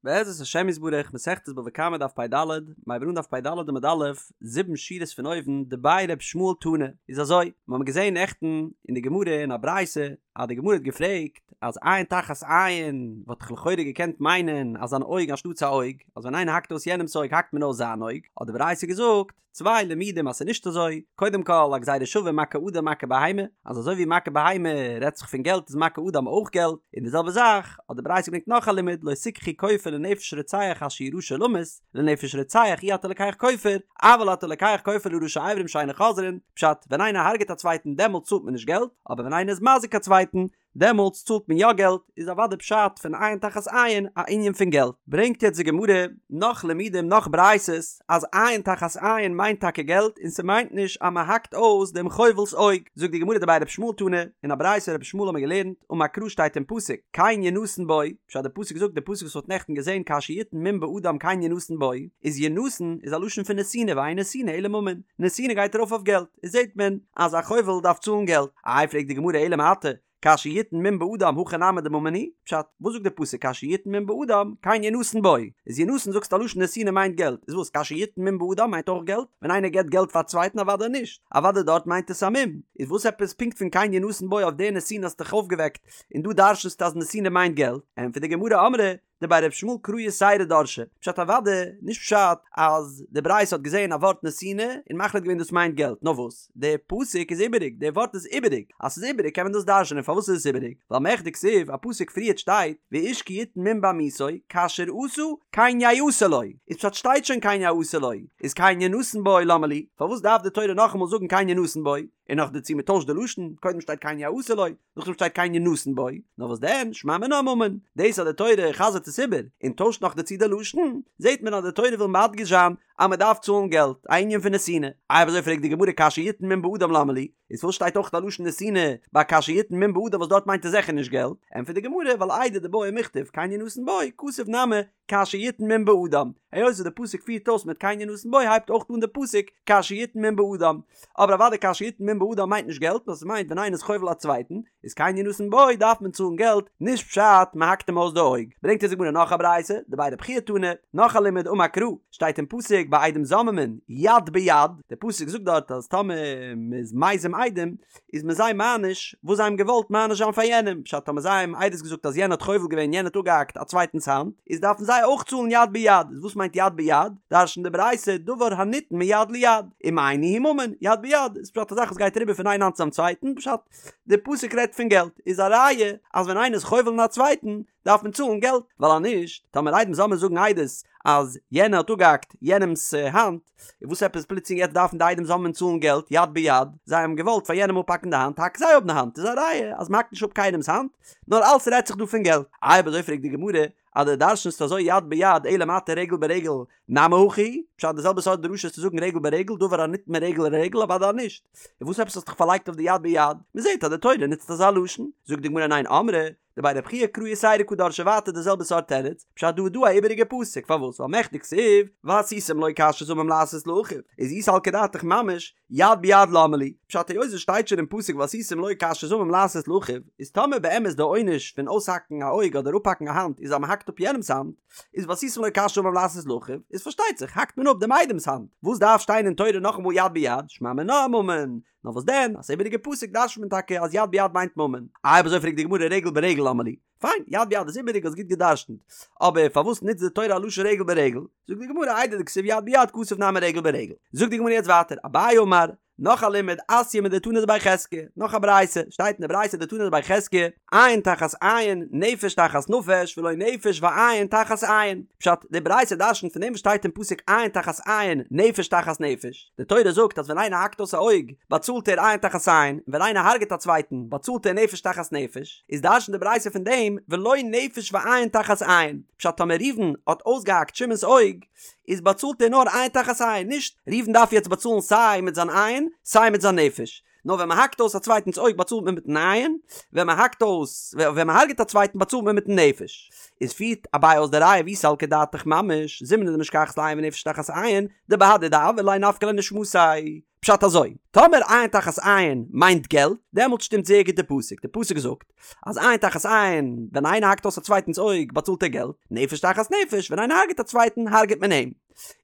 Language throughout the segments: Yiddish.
בעזרת השם יתברך, מסכת בבא קמא דף פ"ד, מ'הייבט אן דף פ"ד עמוד א', זיבן שורות פון אויבן, דבי ר' ישמעאל תנא, איז אזוי, מיר האבן געזען נעכטן אין די גמרא אין א ברייתא, אז די גמרא האט געפרעגט אז עין תחת עין וואלט איך לכאורה געקענט מיינען אז אן אויג אנשטאטס א אויג, אז ווען איינער האקט אויס יענעמס אויג האקט מען אויס זיין אויג, האט די ברייתא געזאגט, צוויי לימודים אז ס'איז נישט אזוי, קודם כל א גזירה שווה מכה אדם מכה בהמה, אז אזוי ווי מכה בהמה רעדט זיך פון געלט איז מכה אדם אויך געלט, און די זעלבע זאך האט די ברייתא געברענגט נאך א לימוד לא תקחו כופר לנפש רוצח אשר הוא רשע למות, לנפש רוצח אי אתה לוקח כופר, אבל אתה לוקח כופר לראשי אברים שאינן חוזרין, פשט, ווען איינער הרג'ט א צווייטן דעמאלט צאלט מען נישט געלט, אבער ווען איינער איז מזיק א צווייטן דעמאלטס צאלט מען יא געלט, איז אוודאי פשט פון עין תחת עין א ענין פון געלט. ברענגט יעצט די גמרא נאך לימודים נאך ברייתות אז עין תחת עין מיינט טאקע געלט און ס'מיינט נישט אז מ'האקט אויס דעם חובל'ס אויג, זאגט די גמרא דבי ר' ישמעאל תנא, אין א ברייתא ר' ישמעאל האמיר געלערנט, אמר קרא שטייט אין פסוק, כן ינתן בו, פשט די פסוק זאגט די פסוק וואס מ'האט נעכטן געזען כאשר יתן מום באדם כן ינתן בו, איז ינתן איז א לשון פון נתינה ואין נתינה אלא ממון, נתינה גייט ארויף אויף געלט, איז זעט מען אז א חובל דארף צאלן געלט. איי פרעגט די גמרא אלא מעתה כאשר יתן מום באדם הכא נמי דממון הוא, פשט, וואס זאגט די פסוק כאשר יתן מום באדם כן ינתן בו, איז ינתן זאגסט א לשון נתינה מיינט געלט, איז וואס כאשר יתן מום באדם מיינט אויך געלט? ווען איינער געבט געלט פאר א צווייטן אוודאי נישט, אוודאי דארט מיינט עס א מום, איז וואס עפעס פונקט פון כן ינתן בו אויף די נתינה האסטו דיך אויפגעוועקט און דא דרש'נסטו אז נתינה מיינט געלט, ענטפערט די גמרא אמרי דבי ר' ישמעאל קרא יתירא דרשי, פשט אוודאי, נישט פשט אז די ברייתא האט געזען א ווארט נתינה און מחליט געווען דאס מיינט געלט, נאר וואס, די פסוק איז איבעריג, די ווארט איז איבעריג, אז ס'איז איבעריג קען מען דאס דרש'נען, פארוואס איז עס איבעריג? ווייל מכדי כתיב, א פסוק פריערט שטייט, ואיש כי יתן מום בעמיתו, כאשר עשה, כן יעשה לו, איז פשט שטייט שוין כן יעשה לו, איז כן ינתן בו למה לי, פארוואס דארף די תורה נאכאמאל זאגן כן ינתן בו, און נאכדערצו מ'טוישט די לשון, קודם שטייט כן יעשה לו, נאכדעם שטייט כן ינתן בו, נאר וואס דען, שמע מינה ממון, דאס אז די תורה חזר'ט עס איבער, און טוישט נאך דערצו די לשון, זעט מען אז די תורה וויל מדגיש זיין אז מען דארף צאלן געלט, א ענין פון נתינה. אויב אזוי פרעגט די גמרא כאשר יתן מום באדם למה לי, איז פארוואס שטייט אויך א לשון נתינה ביי כאשר יתן מום באדם וואס דארט מיינט עס זיכער נישט געלט, ענטפערט די גמרא ווייל איידי דבעי מיכתב כן ינתן בו, כתב נמי כאשר יתן מום באדם, היות וואס די פסוק פירט אויס מיט כן ינתן בו הייבט אויך אן די פסוק כאשר יתן מום באדם, אבער אוודאי כאשר יתן מום באדם מיינט נישט געלט נאר ס'מיינט ווען איינער איז חובל א צווייטן איז כן ינתן בו דארף מען צאלן געלט נישט פשט מ'האקט אים אויס די אויג. ברענגט אונז די גמרא נאך א ברייתא, דבי רבי חייא תנא, נאך א לימוד אמר קרא, שטייט אין פסוק ביי עדים זוממין יד ביד, די פסוק זאגט דארט אז טאמער מ'איז מזים עדים איז מען זיי מעניש וואס זיי האבן געוואלט מעניש זיין פאר יענעם, פשט טאמער זיי האבן עדות געזאגט אז יענער האט חובל געווען יענער האט אפגעהאקט א צווייטנס האנט, איז דארפן זיי אויך צאלן יד ביד, איז וואס מיינט יד ביד? דרש'נט די ברייתא דבר הניתן מיד ליד, ומאי ניהו ממון, יד ביד איז פשט א זאך וואס גייט אריבער פון איין האנט צום צווייטן, פשט די פסוק רעדט פון געלט, איז א ראיה אז ווען איינער איז חובל אין א צווייטן דארף מען צאלן געלט, ווייל אז נישט, טאמער עדים זוממין זאגן עדות אז יענער האט אפגעהאקט יענעמ'ס האנט, און וואס עפעס פלוצלינג יעצט דארפן די עדים זוממין צאלן געלט יד ביד, זיי האבן געוואלט פאר יענעם אפהאקן די האנט, האק זיי אפ די האנט, איז א ראיה אז מ'האקט נישט אפ קיינעמ'ס האנט, נאר אלס רעדט זיך דא פון געלט. אויב אזוי פרעגט די גמרא, אז דו דרש'נסט אזוי יד ביד אלא מעתה רגל ברגל נמי הכי, פשט די זעלבע סארט דרשה איז צו זאגן רגל ברגל דבר הניתן מרגל לרגל אוודאי נישט, און וואס עפעס האסט דיך פארלייגט אויף די יד ביד, מ'זעט אז די תורה נוצט אזא לשון, זאגט די גמרא ניין אמרי, דבי רבי חייא קרא יתירא קא דרשי ווייטער די זעלבע סארט תירוץ, פשט דא איז דא א איבעריגע פסוק, פארוואס? ווייל מכדי כתיב, ועשיתם לו כאשר זמם לעשות לאחיו, איז אי סלקא דעתך ממש, יד ביד למה לי, פשט היות עס שטייט שוין אין פסוק ועשיתם לו כאשר זמם לעשות לאחיו, איז טאמער באמת די עונש פון אויסהאקן א אויג אדער אפהאקן א האנט איז אז מען האקט אפ יענעמס האנט, איז ועשיתם לו כאשר זמם לעשות לאחיו, איז פארשטייט זיך האקט מען אפ דעם איידעמס האנט, וואס דארף שטיין אין תורה נאכאמאל יד ביד, שמע מינה ממון, נאר וואס דען, אז ס'איבעריגע פסוק דרש'נט מען טאקע אז יד ביד מיינט ממון. אויב אזוי פרעגט די גמרא רגל ברגל למה לי? פיין, יד ביד איז איבעריג האסט גוט געדרש'נט. אבער פארוואס נוצט די תורה א לשון רגל ברגל? זאגט די גמרא איידי דכתיב יד ביד כתב נמי רגל ברגל. זאגט די גמרא יעצט ווייטער, אביי אמר, נאך א לימוד, אתיא מדתנא דבי חזקיה, נאך א ברייתא, שטייט אין די ברייתא דתנא דבי חזקיה, עין תחת עין, נפש תחת נפש, ולא נפש ועין תחת עין. פשט, די ברייתא דרש'נט פון דעם וואס שטייט אין פסוק עין תחת עין, נפש תחת נפש. די תורה זאגט אז ווען איינער האקט אויס א אויג, באצאלט ער עין תחת עין, און ווען איינער הרג'עט א צווייטן, באצאלט ער נפש תחת נפש. איז דרש'נט די ברייתא פון דעם, ולא נפש ועין תחת עין. פשט, טאמער ראובן האט אויסגעהאקט שמעון'ס אויג, איז באצאלט ער נאר עין תחת עין, נישט ראובן דארף יעצט באצאלן סיי מיט זיין עין, סיי מיט זיין נפש. נאר ווען מען האקט אויס א צווייטנס אויג באצאלט מען מיטן עין, ווען מען האקט אויס, ווען מען הרג'ט א צווייטן באצאלט מען מיטן נפש. איז פירט אביי אויס די ראיה ואי סלקא דעתך ממש, זימנין דמשכחת לה עין ונפש תחת עין, דבהדי דעויר ליה נפקא ליה נשמתיה. פשט אזוי, טאמער עין תחת עין מיינט געלט, דעמאלט שטימט זייער גוט די פסוק, די פסוק זאגט אז עין תחת עין, ווען איינער האקט אויס א צווייטנס אויג באצאלט ער געלט, נפש תחת נפש, ווען איינער הרג'ט א צווייטן הרג'ט מען אים.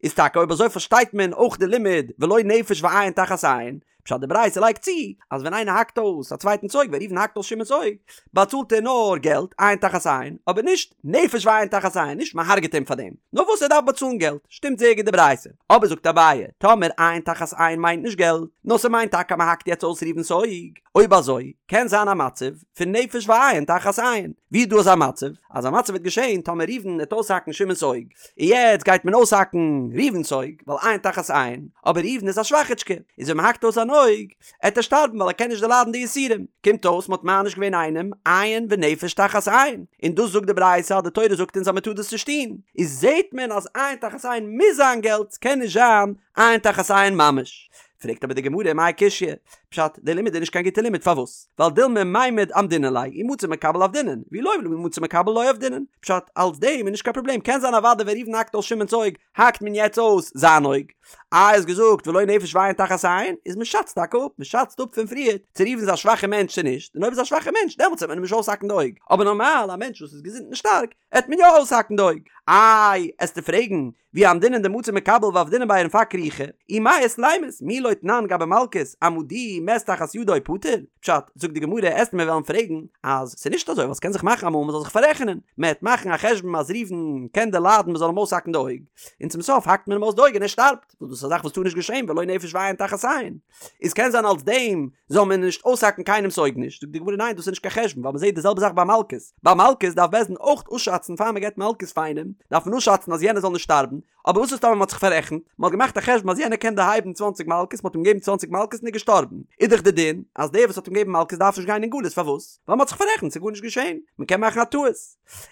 איז טאקע אויב אזוי פארשטייט מען אויך די לימוד ולא נפש ועין תחת עין, פשט די ברייתא לייגט צו אז ווען איינער האקט אויס א צווייטנס אויג ווען ראובן האקט אויס שמעון'ס אויג באצאלט ער נאר געלט עין תחת עין אבער נישט נפש ועין תחת עין נישט מען הרג'ט אים פאר דעם נאר וואס ער דארף באצאלן געלט שטימט זייער גוט די ברייתא אבער זאגט אביי טאמער עין תחת עין מיינט נישט געלט נאר ס'מיינט טאקע אז מען האקט יעצט אויס ראובן'ס אויג אויב אזוי קען זיין א מצב פון נפש ועין תחת עין ווי איז דא אזא מצב? אזא מצב וועט געשען טאמער ראובן וועט אויסהאקן שמעון'ס אויג און יעצט גייט מען אויסהאקן ראובן'ס אויג, ווייל עין תחת עין, אבער ראובן איז א שוואכיטשקע, איז ווען מ'האקט אויס זיין אויג, עט ער שטארבן ווייל ער קען נישט דערליידן די יסורים. קומט אויס מ'האט מעניש געווען איינעם, עין ונפש תחת עין, און דאס זאגט די ברייתא אז די תורה זאגט אונז אז מ'טאר דאס נישט טון, איז זעט מען אז עין תחת עין מוז זיין געלט, ס'קען נישט זיין עין תחת עין ממש. פרעגט אבער די גמרא מאי קשיא? פשט, די לימוד איז נישט קיין גוטע לימוד, פארוואס? ווייל דילמא מימד אמדינן ליה, אי מצי מקבל עבדינן, ואי לא מצי מקבל לא עבדינן. פשט, אלס דעם איז נישט קיין פראבלעם, קען זיין אוודאי ווען ראובן האקט אויס שמעון'ס אויג, האקט מען יעצט אויס זיין אויג. איי האסט געזאגט ולא נפש ועין תחת עין, איז מען שאצט טאקע אפ, מען שאצט אפ פון פריער, צו ראובן איז א שוואכע מענטש צו נישט, און אויב איז א שוואכע מענטש דעמאלטס וועט מען אים נישט אויסהאקן די אויג, אבער נארמאל א מענטש וואס איז געזונט און שטארק, עט מען יא אויסהאקן די אויג. איי, עסטו פרעגן, ואי אמדינן דמצי מקבל ועבדינן ביה ונפק רוחיה, אי מיית לימות, מי לא תנן גבי מלקות, אמדוהו מת תחת ידו פטור? פשט, זאגט די גמרא, עסט מיר וועלן פרעגן, אז ס'איז נישט אזוי, ווייל ס'קען זיך מאכן אמאל מ'זאל זיך פאררעכענען, מ'עט מאכן א חשבון אז ראובן קען דערליידן מ'זאל אים אויסהאקן די אויג, און צום סוף האקט מען אים אויס די אויג און ער שטארבט, וואס דאס איז א זאך וואס טאר נישט געשען ולא נפש ועין תחת עין. איז קען זיין אלס דעם זאל מען נישט אויסהאקן קיינעמס אויג נישט, זאגט די גמרא ניין דאס איז נישט קיין חשבון ווייל מ'זעט די זעלבע זאך ביי מלקות, ביי מלקות דארף בית דין אויך אפשאצן פאר מ'געט מלקות פאר איינעם דארף מען אפשאצן אז יענער זאל נישט שטארבן, אבער וואס איז טאמער מ'האט זיך פאררעכנט, מ'האט געמאכט א חשבון אז יענער קען דערהייבן צוואנציג מלקות מ'האט אים געגעבן צוואנציג מלקות און ער איז געשטארבן, איז דאך די דין אז דער וואס האט אים געגעבן מלקות דארף נישט גיין אין גלות פארוואס? ווייל מ'האט זיך פאררעכנט ס'איז גארנישט געשען, מ'קען מאכן א טעות.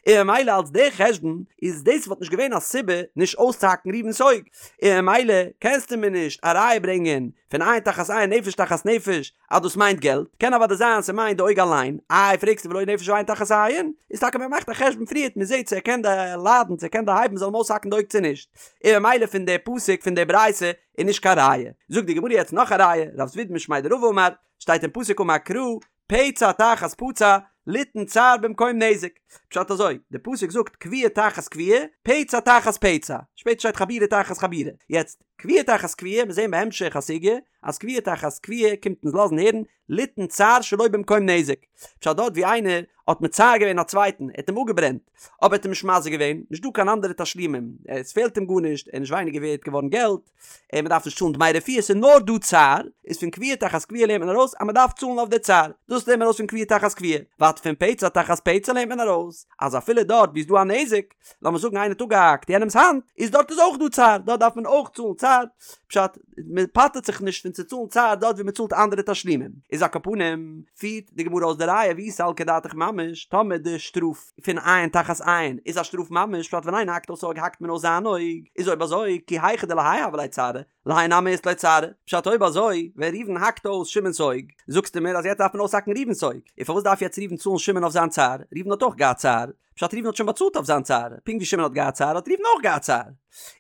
און ממילא אלס דער חשבון איז דאס וואלט נישט געווען א סיבה נישט אויסצוהאקן ראובן'ס אויג, און ממילא קענסטו מיר נישט א ראיה ברענגען פון עין תחת עין נפש תחת נפש אז דאס מיינט געלט, קען אוודאי זיין ס'מיינט די אויג אליין, איי פרעגסטו ולא נפש ועין תחת עין, איז טאקע מען מאכט א חשבון פריערט מען זעט צו ער קען דערליידן צו ער קען דערהייבן זאל מען אויסהאקן די אויג צו נישט, און ממילא פון די פסוק פון די ברייתא איז נישט קיין ראיה. זאגט די גמרא יעצט נאך א ראיה, רב זביד משמיה דרבא אמר, שטייט אין פסוק אמר קרא, פצע תחת פצע, ליתן צער במקום נזק. פשט אזוי, די פסוק זאגט כויה תחת כויה, פצע תחת פצע, שפעטער שטייט חבורה תחת חבורה. יעצט, כויה תחת כויה, מיר זעהן בהמשך הסוגיא, אז כויה תחת כויה קומט אונז לאזן הערן, ליתן צער שלא במקום נזק. פשט דארט ווי איינער האט מצער געווען א צווייטן, ער האט אים אפגעברענט, אבער ער האט אים נישט מזיק געווען, נישט דא קיין אנדערע תשלומים, עס פעלט אים גארנישט, ער איז נישט ווייניגער ווערט געווארן געלט, און מען דארף נישט צאלן דמי רפואה, ס'איז נאר דא צער, איז פון כויה תחת כויה לערנט מען ארויס אז מען דארף צאלן אויף די צער, דאס לערנט מען ארויס פון כויה תחת כויה, ווייטער פון פצע תחת פצע לערנט מען ארויס אז אפילו דארט ווי איז דא א נזק, לאמיר זאגן איינער האט אפגעהאקט יענעמ'ס האנט, איז דארט איז אויך דא צער, דארט דארף מען אויך צאלן צער, פשט, מען פטר'ט זיך נישט פון צו צאלן צער דארט ווי מען צאלט אנדערע תשלומים, איז על כל פנים, פירט די גמרא אויס די ראיה ואי סלקא דעתך ממש, טאמער די שטראף. פון עין תחת עין איז א שטראף ממש פשט ווען איינער האקט אויס אויג האקט מען אויס זיין אויג איז אויב אזוי כי היכי דלהאי הוה ליה צערא להאי נמי אית ליה צערא פשט אויב אזוי ווען ראובן האקט אויס שמעון'ס אויג זאגסטו מיר אז יעצט דארף מען אויסהאקן ראובן'ס אויג און פארוואס דארף יעצט ראובן צאלן שמעון אויף זיין צער ראובן האט אויך געהאט צער פשט ראובן האט שוין באצאלט אויף זיין צער פונקט ווי שמעון האט געהאט צער האט ראובן אויך געהאט צער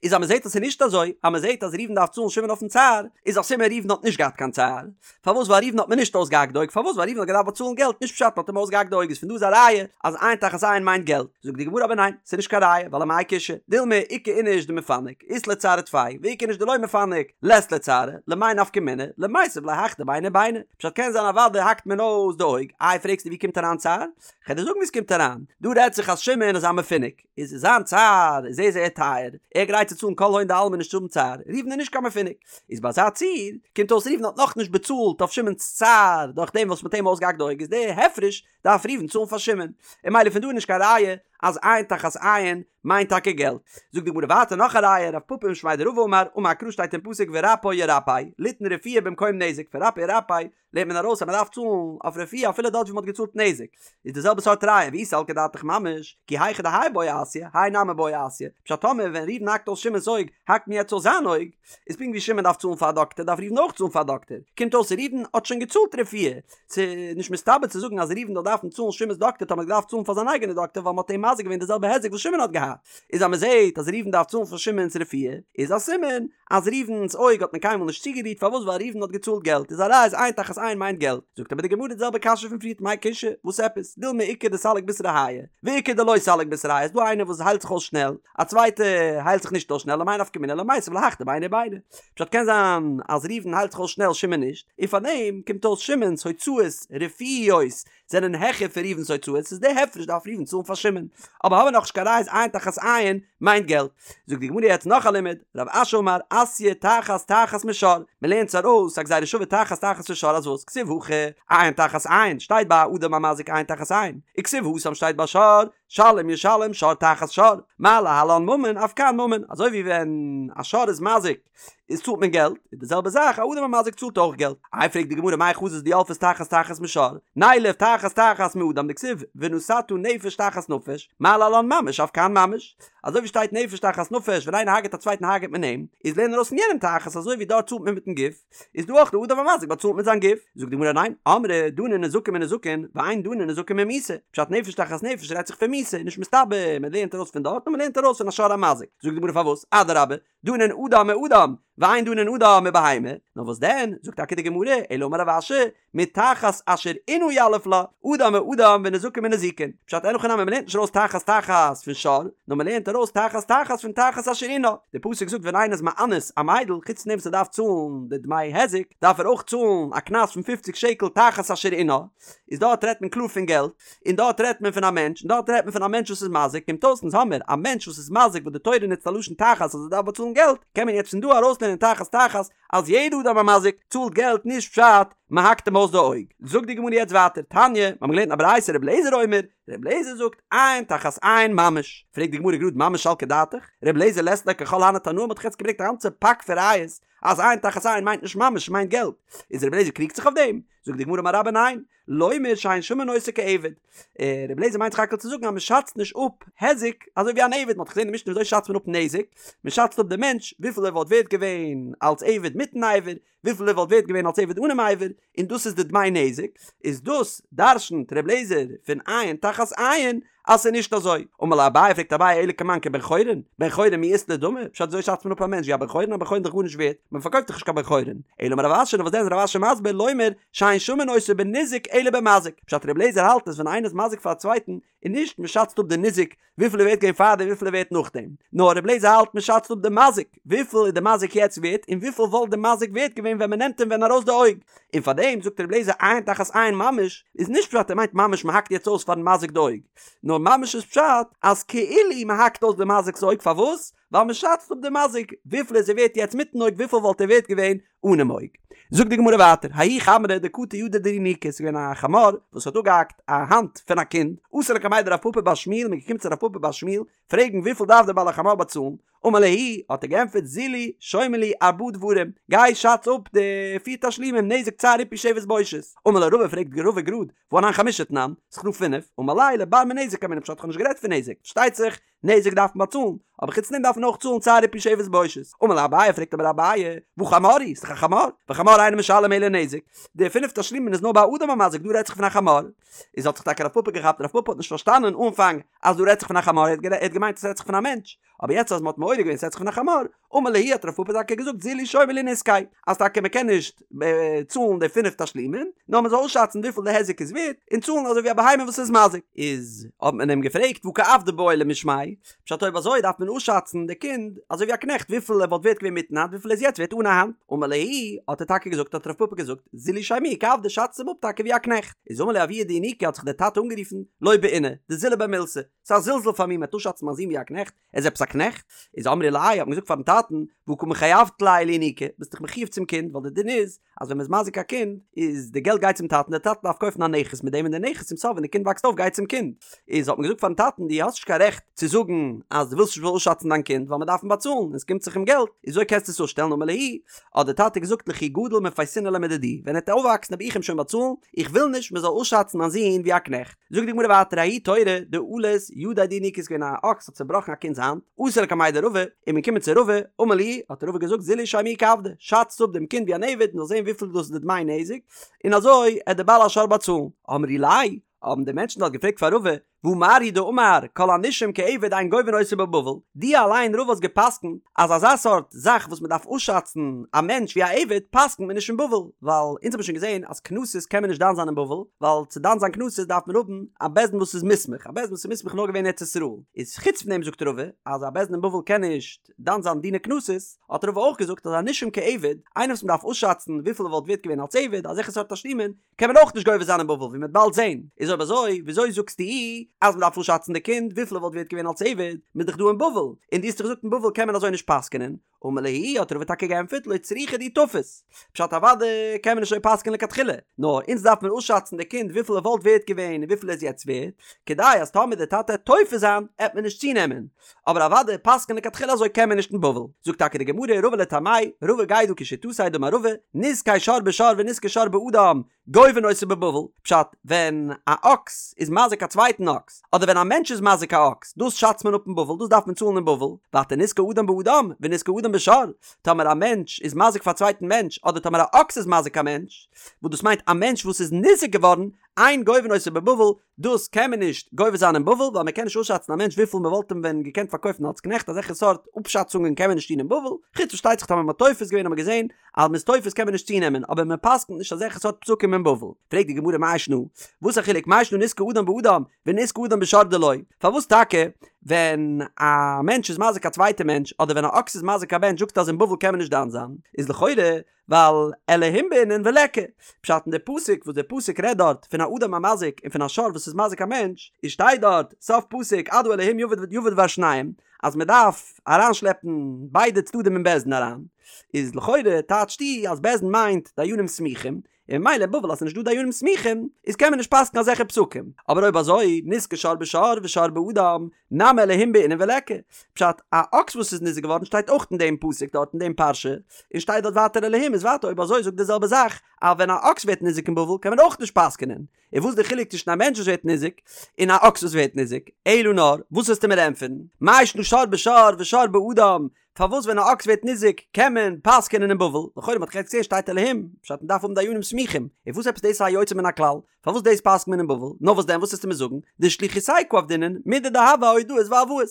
איז אז מען זעט אז ס'איז נישט אזוי, אז מען זעט אז ראובן דארף צאלן שמעון אויפן צער, איז א סימן ראובן האט נישט געהאט קיין צער. פארוואס ווייל ראובן האט מען נישט אויסגעהאקט די אויג, פארוואס ווייל ראובן האט געדארפט באצאלן געלט, נישט פשט מען האט אים אויסגעהאקט די אויג, איז פון דא איז א ראיה אז עין תחת עין מיינט געלט. זאגט די גמרא אבער ניין, ס'איז נישט קיין ראיה, ווייל אמאי קושיא, דילמא איכא איניש דמפנק, אית ליה צערא טפי, ואיכא איניש דלא מפנק, לית ליה צערא, למאי נפקא מינה, למיתב ליה הך דביני ביני. פשט קען זיין אוודאי האקט מען אויס די אויג, איי פרעגסטו ווי קומט אריין צער? כ'על דיר זאגן ווי ס'קומט אריין, דא רעדט זיך אז שמעון איז א מפונק, איז זיין צער איז זייער זייער טייער, ער גרייט צו צאלן כל הון דעלמא נישט צו האבן צער, ראובן איז נישט קיין מפונק, איז ביי אזא ציור, קומט אויס ראובן האט נאכנישט באצאלט אויף שמעון'ס צער דורך דעם וואס מ'האט אים אויסגעהאקט די אויג איז די הפרש דארף ראובן צאלן פאר שמעון, און ממילא פון דא איז נישט קיין ראיה אז עין תחת עין מיינט טאקע געלט. זאגט די גמרא ווייטער נאך א ראיה, רב פפא משמיה דרבא אמר, אמר קרא שטייט אין פסוק ורפא ירפא, ליתן רפואה במקום נזק, פון רפא ירפא לערנט מען ארויס אז מען דארף צאלן אויף רפואה אפילו דארט ווי מען האט געצאלט נזק, איז די זעלבע סארט ראיה ואי סלקא דעתך ממש, כי היכי דהאי בעי אסיא, האי נמי בעי אסיא, פשט טאמער ווען ראובן האקט אויס שמעון'ס אויג, האקט מען יעצט אויס זיין אויג, איז פונקט ווי שמעון דארף צאלן פאר א דאקטער דארף ראובן אויך צאלן פאר א דאקטער, קומט אויס ראובן האט שוין געצאלט רפואה, ס'איז נישט מסתבר צו זאגן אז ראובן זאל דארפן צאלן שמעון'ס דאקטער טאמער ער האט געדארפט צאלן פאר זיין אייגענע דאקטער ווייל מען האט אים. מזיק געווען די זעלבע היזק וואס שמעון האט געהאט, איז אז מען זעט אז ראובן דארף צאלן פאר שמעון'ס רפואה, איז א סימן אז ראובן'ס אויג האט מען קיינמאל נישט צוגערירט, פארוואס ווייל ראובן האט געצאלט געלט, איז א ראיה אז עין תחת עין מיינט געלט, זאגט אבער די גמרא די זעלבע קשיא פון פריערט מאי קושיא, וואס עפעס, דילמא איכא דסליק בשריה הייא, ואיכא דלא סליק בשריה הייא, איז דא איינער וואס היילט זיך אויס שנעל, א צווייטע היילט זיך נישט אויס שנעל, למאי נפקא מינה למיתב להך דביני וביני, פשט קען זיין אז ראובן היילט זיך אויס שנעל שמעון נישט, און פארדעם קומט אויס שמעון'ס הוצאות רפואיות זענען העכער פון ראובן'ס הוצאות, איז די הפרש דארף ראובן צאלן פאר שמעון, אבער האבן מיר נאכנישט קיין ראיה אז עין תחת עין מיינט געלט. זאגט די גמרא יעצט נאך א לימוד, רב אשי אמר אתיא תחת תחת משור, מען לערנט עס ארויס א גזירה שווה תחת תחת פון שור אז וואס כתיב הכא עין תחת עין שטייט ביי אדם המזיק עין תחת עין, וכתיב התם שטייט ביי שור שלם ישלם שור תחת שור, מה להלן ממון אף כאן ממון, אזוי ווי ווען א שור איז מזיק איז צאלט מען געלט, איז די זעלבע זאך א אדם המזיק צאלט אויך געלט. איי פרעגט די גמרא מאי חזית דילפת תחת תחת משור, נילף תחת תחת מאדם דכתיב ונתתה נפש תחת נפש, מה להלן ממש אף כאן ממש, אזוי ווי שטייט נפש תחת נפש ווען איינער הרג'ט א צווייטן הרג'ט מען אים, איז לערן ארויס פון יענעם תחת אזוי ווי דארט צאלט מען מיטן גוף, איז דא אויך די אדם המזיק באצאלט מיט זיין גוף? זאגט די גמרא ניין, אמרי דנין נזקין מנזקין, ואין דנין נזקין ממיתה, פשט נפש תחת נפש רעדט זיך פון מיתה, נישט מסתבר, מען לערנט ארויס פון דארט נאר מען לערנט ארויס פון א שור המזיק, זאגט די גמרא פארוואס? אדרבה, דנין אדם מאדם, ואין דנין אדם מבהמה, נאר וואס דען, זאגט טאקע די גמרא, אלא אמר רב אשי, מתחת אשר ענה יליף לה, אדם מאדם ונזקין מנזיקין, פשט אין הכי נמי מ'לערנט נישט ארויס תחת תחת פון שור, נאר מ'לערנט ארויס תחת תחת פון תחת אשר ענה, די פסוק זאגט ווען איינער איז מאנס א מיידל, חוץ פון דעם וואס ער דארף צאלן די דמי היזק, דארף ער אויך צאלן א קנס פון פופציג שקל תחת אשר ענה, איז דארט רעדט מען קלאר פון געלט, און דארט רעדט מען פון א מענטש, און דארט רעדט מען פון א מענטש וואס איז מזיק, קומט אויס אונז האמיר א מענטש וואס איז מזיק וואס די תורה נוצט א לשון תחת אז ער דארף באצאלן געלט, קען מען יעצט פון דא ארויסלערנען תחת תחת אז יעדע אדם המזיק צאלט געלט נישט פשט מען האקט אים אויס די אויג. זאגט די גמרא יעצט ווייטער, תניא, מיר האבן געלערנט אין א ברייתא רבי אליעזר אומר, רבי אליעזר זאגט, עין תחת עין ממש, פרעגט די גמרא גראד ממש סלקא דעתך, רבי אליעזר לית ליה ככל הני תנאי, מ'האט דאך יעצט געברענגט א גאנצע פאק פון ראיות אז עין תחת עין מיינט נישט ממש מיינט געלט, איז רבי אליעזר קריגט זיך אויף דעם? זאגט די גמרא אמר רבה ניין, לומר שאין שמין אותו כעבד. רבי אליעזר מיינט סך הכל צו זאגן אז מען שאצט נישט אפ היזק אזוי ווי אן עבד, מען האט געזען אין משנה וויאזוי שאצט מען אפ נזק, מען שאצט אפ דעם מענטש וויפיל ער וואלט ווערט געווען אלס עבד מיטן אבר, וויפיל ער וואלט ווערט געווען אלס עבד אנעם אבר, און דאס איז די דמי נזק, איז דאס דרשנ'ט רבי אליעזר פון עין תחת עין אז ס'איז נישט אזוי. אמר ליה אביי פרעגט אביי אלא כמאן כבן חורין, בן חורין מי אית ליה דמי, פשט וויאזוי שאצט מען אפ א מענטש ווי א בן חורין, א בן חורין איז דאך גארנישט ווערט, מען פארקויפט דאך נישט קיין בן חורין, אלא אמר רב אשי נאר וואס דען איז רב אשי מסביר לומר שאין שמין אותו בניזק אלא במזיק, פשט רבי אליעזר האלט אז ווען איינער איז מזיק פאר א צווייטן איז נישט מען שאצט אפ די ניזק וויפיל ער ווערט געווען פארדעם וויפיל ער ווערט נאכדעם, נאר רבי אליעזר האלט מען שאצט אפ די מזיק וויפיל איז די מזיק יעצט ווערט און וויפיל וואלט די מזיק ווערט געווען ווען מען נעמט אים ווען ארויס די אויג, און פארדעם זאגט רבי אליעזר עין תחת עין ממש איז נישט פשט ער מיינט ממש מען האקט יעצט אויס פארן מזיק די אויג, נאר ממש איז פשט אז כאילו מען האקט אויס די מזיק'ס אויג פארוואס? ווייל מען שאצט אפ די מזיק וויפיל איז ער ווערט יעצט מיטן אויג וויפיל וואלט ער ווערט געווען אנעם אויג. זאגט די גמרא ווייטער, ההוא חמרא דקטע ידיה דינוקא, ס'איז געווען א חמור וואס האט אפגעהאקט א האנט פון א קינד, אתו לקמיה דרב פפא בר שמואל, מ'איז געקומען צו רב פפא בר שמואל פרעגן וויפיל דארף דער בעל החמור באצאלן, אמר להו, האט ער געענטפערט זילו שיימו לי ארבעה דברים, גיי שאץ אפ די פיר תשלומים נזק צער ריפוי שבת בושת, אמר ליה רבא פרעגט רבא גראד, והא אנן חמשה תנן, ס'איז דא פינף, אמר ליה לבר מנזק קאמינא פשט כ'האב נישט גערעדט פון נזק, פארשטייט זיך נזק דארף מען באצאלן, אבער חוץ דעם דארף מען אויך צאלן צער ריפוי שבת בושת. אמר ליה אביי פרעגט אבער אביי, והא חמור הוא, ס'דאך א חמור, וחמור אינו משלם אלא נזק, די פינף תשלומין איז נאר ביי אדם המזיק דא רעדט זיך פון א חמור, איז האט זיך טאקע רב פפא געכאפט רב פפא האט נישט פארשטאנען אנפאנג אז דא רעדט זיך פון א חמור ער האט געמיינט אז ס'רעדט זיך פון א מענטש, אבער יעצט אז מ'האט מעורר געווען ס'רעדט זיך פון א חמור, אמר להו האט רב פפא טאקע געזאגט זילו שיימו לי נזקיה אז טאקע מ'קען נישט צאלן די פינף תשלומין, נאר מ'זאל אויסשאצן וויפיל די היזק איז ווערט, און צאלן אזוי ווי א בהמה וואס איז מזיק. איז האט מען אים געפרעגט והא כעבדא בעי למשמיה, פשט אויב אזוי דארף מען אויסשאצן די קינד אזוי ווי א קנעכט וויפיל ער וואלט ווערט געווען מיטן האנט וויפיל ער איז יעצט ווערט אן א האנט, אמר להו האט ער טאקע געזאגט האט רב פפא געזאגט זילו שיימוהו כעבדא שאצט אים אפ טאקע ווי א קנעכט, איז אמר להו אבוה דינוקא האט זיך דער טאטע אנגערופן לא בעינא דזילא ביה מילתא, ס'איז א זלזול פאר מיר מ'וועט אויסשאצן מיין זון ווי א קנעכט, ער איז עפעס א קנעכט? איז אמרי ליה האט מען געזאגט פארן טאטן, והא קא מחייבת ליה לינוקא, ביסט דאך מחויב צום קינד, ווייל די דין איז אז ווען מ'איז מזיק א קינד, איז די געלט גייט צום טאטן, דער טאטע דארף קויפן א נכס מיט דעם און די נכס צום סוף ווען די קינד וואקסט אויף גייט צום קינד. איז האט מען געזאגט פארן טאטן, דו האסט נישט קיין רעכט צו זאגן אז דו ווילסט נישט מ'זאל אויסשאצן דיין קינד, ווייל מ'דארף אים באצאלן און עס קומט זיך אים געלט, איז וויאזוי קענסטו עס אפשטעלן אמר להו, האט דער טאטע געזאגט לכי גדיל מפייסנא ליה מדידי, ווען ער וועט אויפוואקסן וועל איך אים שוין באצאלן, איך וויל נישט מ'זאל אויסשאצן מיין זון ווי א קנעכט. זאגט די גמרא ווייטער ההוא תורא דאלס ידיה דינוקא איז געווען א אקס האט צובראכן א קינד'ס האנט, אתו לקמיה דרבא, איז מען געקומען צו רבא, אמר להו, האט רבא געזאגט זילו שיימוהו כעבדא, שאצט אפ דעם קינד ווי אן עבד מ'זאל זען וויפיל דאס איז די דמי נזק, און אזוי עט דער בעל השור באצאלן. אמרי ליה, האבן די מענטשן דארט געפרעגט פאר רבא, והא מר הוא דאמר כל הנישום כעבד אין גובין אותו בבבל, דו אליין רבא האסט געפסקנט אז אזא סארט זאך וואס מען דארף אפשאצן א מענטש ווי א עבד פסקנט מען נישט אין בבל, ווייל אונז האבן שוין געזען אז קנסות קען מען נישט דן זיין אין בבל, ווייל צו דן זיין קנסות דארף מען האבן א בית דין וואס איז מוסמך, א בית דין וואס איז מוסמך איז נאר געווען אין ארץ ישראל, איז חוץ פון דעם זאגט רבא אז א בית דין אין בבל קען נישט דן זיין דיני קנסות, האט רבא אויך געזאגט אז א נישום כעבד, איינער וואס מען דארף אפשאצן וויפיל ער וואלט ווערט געווען אלס עבד, אזעלכע סארט תשלומין, קען מען אויך נישט גובה זיין אין בבל ווי מען וועט באלד זעהן, איז אויב אזוי וויאזוי זאגסטו אז מען דארף אפשאצן די קינד וויפיל ער וואלט ווערט געווען אלס עבד, מען איז דאך דא אין בבל, און דו האסט דאך געזאגט אין בבל קען מען אזוי נישט פסק'נען, אמר להו האט רבא טאקע געענטפערט לא צריכא דאי תפס, פשט אוודאי קען מען נישט אזוי פסק'נען לכתחילה, נאר אונז דארף מען אפשאצן די קינד וויפיל ער וואלט ווערט געווען און וויפיל ער איז יעצט ווערט, כדי אז טאמער די טאטע עט תופס זיין עט מען נישט צונעמען, אבער אוודאי פסק'נען לכתחילה אזוי קען מען נישט אין בבל, זאגט טאקע די גמרא רבא לטעמיה, רבא גייט דא כשיטתיה דאמר רבא, נזקי שור בשור ונזקי שור באדם, גובין אותו בבבל, פשט, ווען א אקס איז מזיק א צווייטן אקס, אדער ווען א מענטש איז מזיק א אקס, דאס שאצט מען אפ אין בבל, דאס דארף מען צאלן אין בבל, ווייטער נזקי אדם באדם, ונזקי אדם בשור, טאמער א מענטש איז מזיק פאר א צווייטן מענטש, אדער טאמער א אקס איז מזיק א מענטש, וואס דאס מיינט א מענטש וואס איז ניזוק געווארן, אין גובין אותו בבבל, דאס קען מען נישט גובה זיין אין בבל ווייל מען קען נישט אפשאצן א מענטש וויפיל מען וואלט אים ווען געקענט פארקויפן אלס קנעכט אזעלכע סארט אפשאצונגען קען מען נישט טון אין בבל, חוץ פארשטייט זיך טאמער מען האט תופס געווען האט מען געזען אז מען איז תופס קען מען נישט צונעמען אבער מען פסקנט נישט אזעלכע סארט פסקים אין בבל. פרעגט די גמרא מאי שנא וואס א חילוק מאי שנא נזקי אדם באדם ונזקי אדם בשור דלא פארוואס טאקע ווען א מענטש איז מזיק א צווייטע מענטש אדער ווען א אקס איז מזיק א מענטש זאגסטו אז אין בבל קען מען נישט דן זיין איז לכאורה ווייל אלהים בעינן וליכא. פשט אין די פסוק וואס די פסוק רעדט דארט פון א אדם המזיק און פון א שור וואס איז מזיק א מענטש, איז שטייט דארט סוף פסוק עד האלהים יבא דבר שניהם אז מען דארף אריינשלעפן ביידע צדדים אין בית דין אריין, איז לכאורה טייטשטו אז בית דין מיינט דיינים סמוכים, און ממילא אין בבל אז ס'איז נישט דא דיינים סמוכים איז קען מען נישט פסק'ן אזעלכע פסקים, אבער אויב אזוי נזקי שור בשור ושור באדם נמי אלהים בעינן וליכא, פשט, א אקס וואס איז ניזוק געווארן שטייט אויך אין דעם פסוק דארט אין דעם פרשה, און שטייט דארט ווייטער אלהים איז ווייטער אויב אזוי זאגט די זעלבע זאך אז ווען א אקס ווערט ניזוק אין בבל קען מען אויך נישט פסק'נען, און וואס איז די חילוק צווישן א מענטש וואס ווערט ניזוק און א אקס וואס ווערט ניזוק, אלא נאר, וואס וועסטו מיר ענטפערן, מאי שנא שור בשור ושור באדם, פארוואס ווען א אקס ווערט ניזוק קען מען פסק'נען אין בבל, לכאורה מ'האט יעצט געזען שטייט אלהים, פשט מ'דארף האבן דיינים סמוכים, און וואס עפעס דאס איז א יוצא מן הכלל, פארוואס דאס פסק'נט מען אין בבל, נאר וואס דען וואס וועסטו מיר זאגן, דשליחותייהו קא עבדינן מידי דהוה אהודאות והלוואות,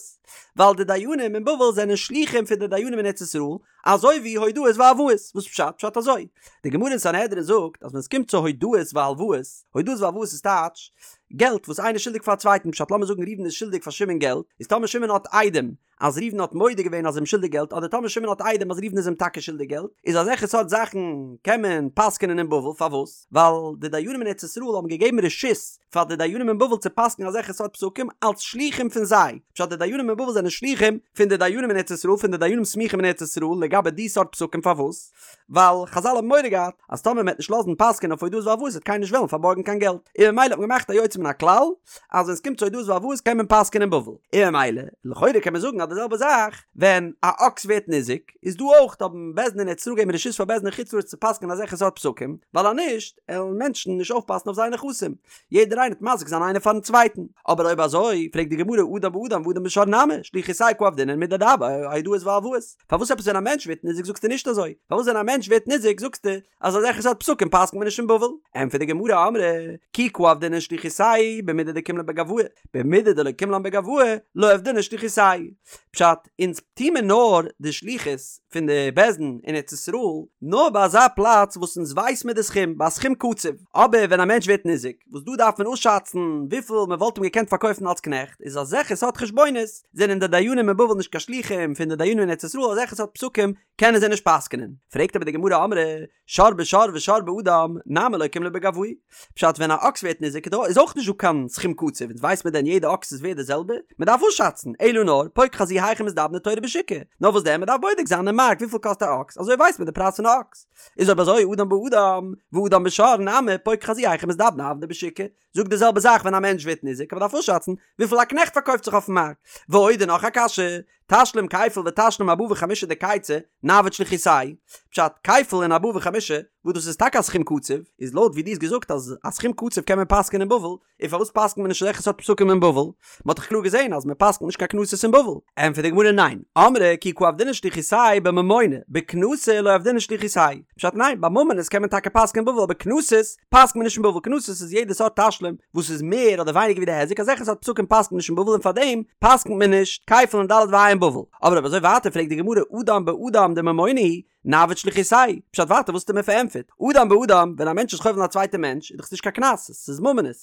ווייל די דיינים אין בבל זענען שלוחים פון די דיינים אין ארץ ישראל, אזוי ווי הודאות והלוואות, וואס פשט? פשט אזוי, די גמרא אין סנהדרין זאגט אז ווען עס קומט צו הודאות והלוואות, הודאות והלוואות איז טייטש, געלט וואס איינער איז שולדיג פאר א צווייטן, פשט לאמיר זאגן ראובן איז שולדיג פאר שמעון געלט, איז טאמער שמעון האט עדים אז ראובן האט מודה געווען אז ער איז אים שולדיג געלט אדער טאמער שמעון האט עדים אז ראובן איז אים טאקע שולדיג געלט, איז אזעלכע סארט זאכן קען מען פסק'נען אין בבל, פארוואס? ווייל די דיינים אין ארץ ישראל האבן געגעבן רשות פאר די דיינים אין בבל צו פסק'נען אזעלכע סארט פסקים אלס שלוחים פון זיי, פשט די דיינים אין בבל זענען שלוחים פון די דיינים אין ארץ ישראל פון די דיינים סמוכים אין ארץ ישראל לגבי די סארט פסקים פארוואס? ווייל חזל האבן מורא געהאט אז טאמער מ'עט נישט לאזן פסק'ענען אויף הודאות והלוואות וועט קיינער נישט וועלן פארבארגן קיין געלט, און ממילא האט מען געמאכט א יוצא מן הכלל אז ווען ס'קומט צו הודאות והלוואות קען מען פסק'ענען אין בבל, און ממילא לכאורה קען מען זאגן אז די זעלבע זאך ווען א אקס ווערט ניזוק איז דא אויך האבן בית דין אין ארץ ישראל געגעבן רשות פאר בית דין אין חוץ לארץ צו פסק'ענען אזעלכע סארט פסקים, ווייל אז נישט עלן מענטשן נישט אויפפאסן אויף זייער נכסים, יעדער איינער וועט מזיק זיין איינער פארן צווייטן, אבער אויב אזוי פרעגט די גמרא אדם באדם ואדם בשור נמי שליחותייהו קא עבדינן מידי דהוה אהודאות והלוואות. פארוואס עפעס ווען א מענטש ווערט ניזוק זאגסטו נישט אזוי? פארוואס ווען א מענטש ווערט ניזוק זאגסטו אז אזעלכע סארט פסקים פסק'נט מען נישט אין בבל? ענטפערט די גמרא אמרי כי קא עבדינן שליחותייהו במידי דקים לן בגואי במידי דלא קים לן בגואי לא עבדינן שליחותייהו. פשט, אונז טוה מיר נאר די שליחות פון די בית דין אין ארץ ישראל נאר ביי אזא פלאץ וואס אונז ווייס מיר די סכום, ביי א סכום קצוב, אבער ווען א מענטש ווערט ניזוק וואס דא דארף מען אפשאצן וויפיל מען וואלט אים געקענט פארקויפן אלס קנעכט, איז אזעלכע סארט חשבונות זענען די דיינים אין בבל נישט קיין שלוחים פון די דיינים אין ארץ ישראל אזעלכע סארט פסקים קענען זיי נישט פסק'נען. פרעגט אבער די גמרא אמרי שור בשור ושור באדם נמי לא קים ליה בגואי. פשט ווען א אקס ווערט ניזוק איז דא איז אויך נישט דא קיין סכום קצוב אונז ווייסט מען דען יעדע אקס איז ווערט די זעלבע? מען דארף אפשאצן אלא נאר פוק חזי היכי מזדבני תורא בשוקא נאר וואס דען מען דארף בודק זיין אין מארק וויפיל קאסט א אקס אזוי ווייסט מען די פרייז פון א אקס. איז אויב אזוי אדם באדם ואדם בשור נמי פוק חזי היכי מזדבני עבדי בשוקא זאג די זעלבע זאך ווען א מענטש ווערט ניזוק, מען דארף אפשאצן וויפיל א קנעכט פארקויפט זיך אויפן מארק. ועוד און נאך א קשיא, תשלום כפל ותשלום ארבעה וחמישה דקייצי, נעביד שליחותייהו, פשט, כפל און ארבעה וחמישה, וואס דאס איז טאקע א סכום קצוב, איז לויט ווי דו האסט געזאגט אז א סכום קצוב קען מען פסק'ענען אין בבל, און פארוואס פסק'נט מען נישט אזעלכע סארט פסקים אין בבל? מען האט דאך קלאר געזען אז מען פסק'נט נישט קיין קנסות אין בבל. ענטפערט די גמרא ניין, אמרי כי קא עבדינן שליחותייהו בממונא, בקנסא לא עבדינן שליחותייהו. פשט ניין, ביי ממונות קען מען טאקע פסק'ענען אין בבל אבער קנסות פסק'נט מען נישט אין בבל, קנסות איז יעדע סארט תשלום וואס איז מער אדער ווייניגער ווי די היזק, אזעלכע סארט פסקים פסק'נט מען נישט אין בבל און פארדעם פסק'נט מען נישט כפל און ד' וה' אין בבל. אבער אויב אזוי ווייטער פרעגט די גמרא אדם באדם דממונא הוא, נעביד שליחותייהו, פשט ווייטער וואס האסטו מיר פארענטפערט? אדם באדם, ווען א מענטש איז חובל אין א צווייטע מענטש איז דאך עס נישט קיין קנס, עס איז ממונות,